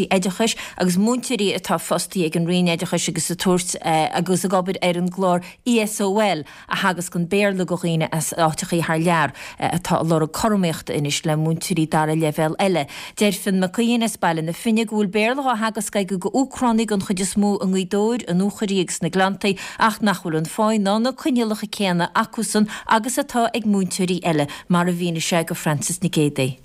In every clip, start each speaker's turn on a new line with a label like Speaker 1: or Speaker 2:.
Speaker 1: cúrsaí oideachais agus múinteoirí atá fostaithe ag an Roinn Oideachais agus ag tabhairt agus ag obair ar an gclár ESOL a theagascann Béarla do dhaoine as áiteachaí thar lear atá ag lorg cothromaíochta anois le múinteoirí dara leibhéal eile. Deir Fionn Mac Aodhain as Baile na Finne go bhfuil Béarla dhá theagasc aige go Úcránaigh den chuid is mó i nGaoth Dobhair, i nDúchoraidh agus sna Gleanntaí ach nach bhfuil an pháí ná na coinníollacha céanna acusan agus atá ag múinteoirí eile, mar a mhínigh sé go Frances Nic Géadaigh.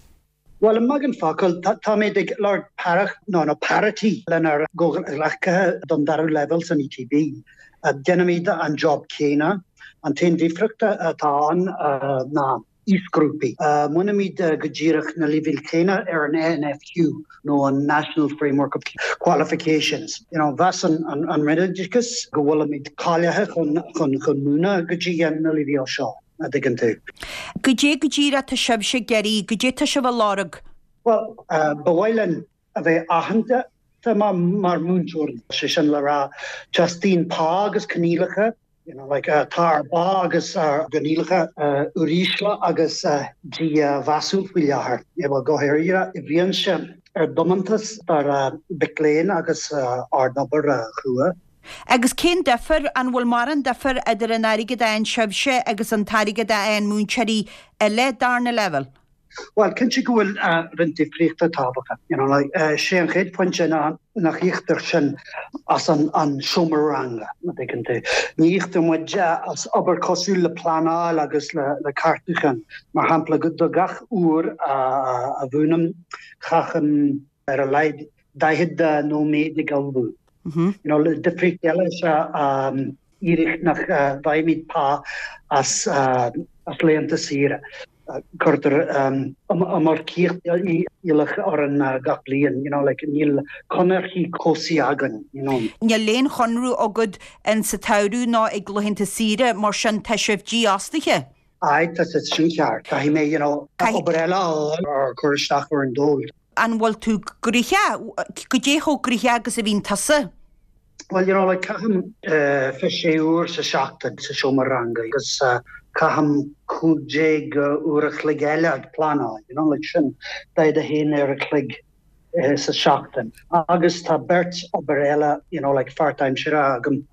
Speaker 2: Bhuel, i mbeagán focal, táimid ag lorg paireacht nó nó parity lenár gcomhghleacaithe don dara leibhéal san ETB. Déanaimid an job céanna. An t-aon difríocht atá ann ná aoisghrúpaí. Múinimid go díreach na leibhéil chéanna ar an NFQ nó an National Framework of Qualifications. You know, mheas an Roinn Oideachais go bhfuilimid cáilithe chun chun múineadh go dtí na leibhéil seo. a dtuigeann tú.
Speaker 3: Goidé go díreach tá sibhse ag iarraidh, goidé tá sibh a lorg?
Speaker 2: Bhuel, ba mhaith linn a bheith aitheanta mar mhúinteoirí. Sé sin le rá, teastaíonn pá agus coinníollacha, you know, like, tá ár bpá agus ár gcoinníollacha uirísle agus dímheasúil faoi láthair, bhuel, go háirithe i bhfianaise ár dtiomantas dár mhic léinn agus ár n-obair chrua.
Speaker 3: Agus cén difear, an bhfuil mórán difear idir an airgead a fhaigheann sibhse agus an t-airgead a fhaigheann múinteoirí eile darna leibhéal?
Speaker 2: Bhuel, cinnte go bhfuil roinnt difríochta tábhachtach. You know, like, sé an chéad phointe ná nach íoctar sinn as an an seomra ranga, má dtuigeann tú. Ní íoctar muid as obair cosúil le pleanáil agus le le ceartúchán. Mar shampla, do gach uair a mhúinim, caithim ar a laghad 40 nóiméad ag ullmhú. You know, difríocht eile is ea iarraidh nach bhfaighimid pá as as laethanta saoire. Cuirtear iomarcaíocht iallach orainn gach bliain, you know, like níl conarthaí cobhsaí againn, you know.
Speaker 3: Níl aon chonradh agat in sa tsamhradh ná ag laethanta saoire, mar sin tá sibh dífhostaithe.
Speaker 2: Aye, tá sé sin ceart. Caithfidh mé, you know, obair eile a fháil or cur isteach ar an dól.
Speaker 3: An bhfuil tú gnoitheach? Goidé chomh gnoitheach agus a bhíonn tusa?
Speaker 2: Bhuel, you know, like, caithim 26 uair sa seachtain sa seomra ranga agus caithim 15 uair a chloig eile ag pleanáil, you know, like sin 41 uair a chloig sa seachtain. Agus tá beirt obair eile, you know, like pháirtaimseartha agam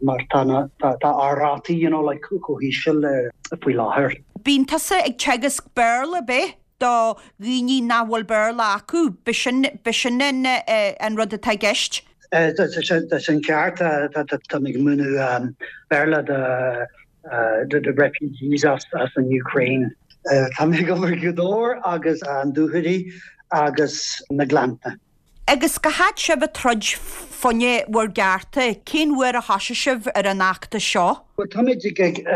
Speaker 2: mar tá na, tá, tá ár rátaí, you know, like chomh híseal faoi láthair.
Speaker 3: Bíonn tusa ag teagasc Béarla, ab ea? do dhaoine nach bhfuil Béarla acu. B'shin, b'shin an, an rud atá i gceist.
Speaker 2: Tá sin ceart. Tá mé ag múineadh Béarla do do refugees as an Ukraine. Tá mé ag obair i nGaoth Dobhair agus an Dúchoraidh agus na Gleannta.
Speaker 3: Agus cá fhad sibh ag troid fá choinne bhur gcearta? Cén uair a thosaigh sibh ar an fheachtas seo?
Speaker 2: Bhuel, táimid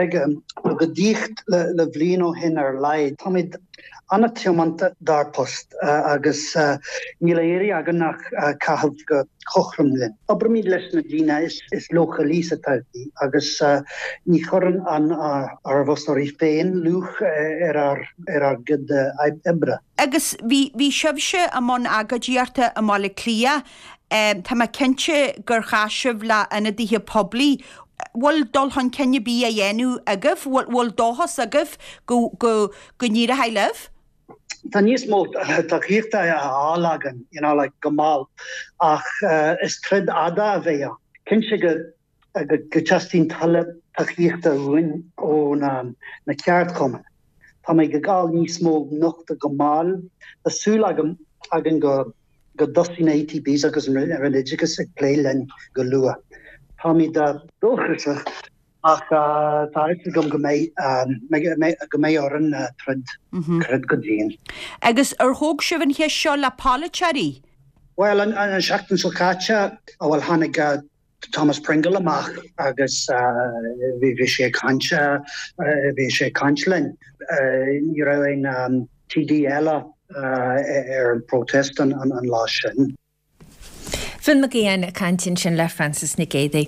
Speaker 2: ag agóidíocht le bliain ó shin ar a laghad. Táimid an-tiomanta dár bpost agus níl á iarraidh againn ach caitheamh go cothrom linn. Oibrimid leis na daoine is leochailí sa todhchaí agus ní chuireann ár bhfostóirí féin luach ar ár gcuid oibre.
Speaker 3: Agus bhí, bhí sibhse i mbun agóidíochta i mBaile Átha Cliath. Tá mé cinnte gur chas sibh le ionadaithe poiblí. Bhfuil dul chun cinn ar bith á dhéanamh agaibh? Bhfuil, bhfuil dóchas agaibh go, go, go n-éireoidh libh?
Speaker 2: Tá níos mó tacaíochta á fháil againn, you know, like, go mall, ach is troid fhada a bheidh ann. Cinnte go go dteastaíonn tuilleadh tacaíochta uainn ó na ceardchumainn. Táimid ag fáil níos mó nochtadh go mall. Tá súil agam againn go dtosóidh na ETBs agus an Roinn Oideachais ag plé linn go luath. Táimid dóchasach ach tá a fhios agam go mbeidh go mbeidh orainn troid troid go dian.
Speaker 3: Agus ar thóg sibh an cheist seo le polaiteoirí?
Speaker 2: Bhuel, an seachtain seo caite, bhuel tháinig Thomas Pringle amach agus bhí sé ag caint, bhí sé ag caint linn. Ní raibh aon TD eile ar an protest an lá sin.
Speaker 1: Fionn Mac Aodháin ag caint ansin le Frances Nic Géadaigh.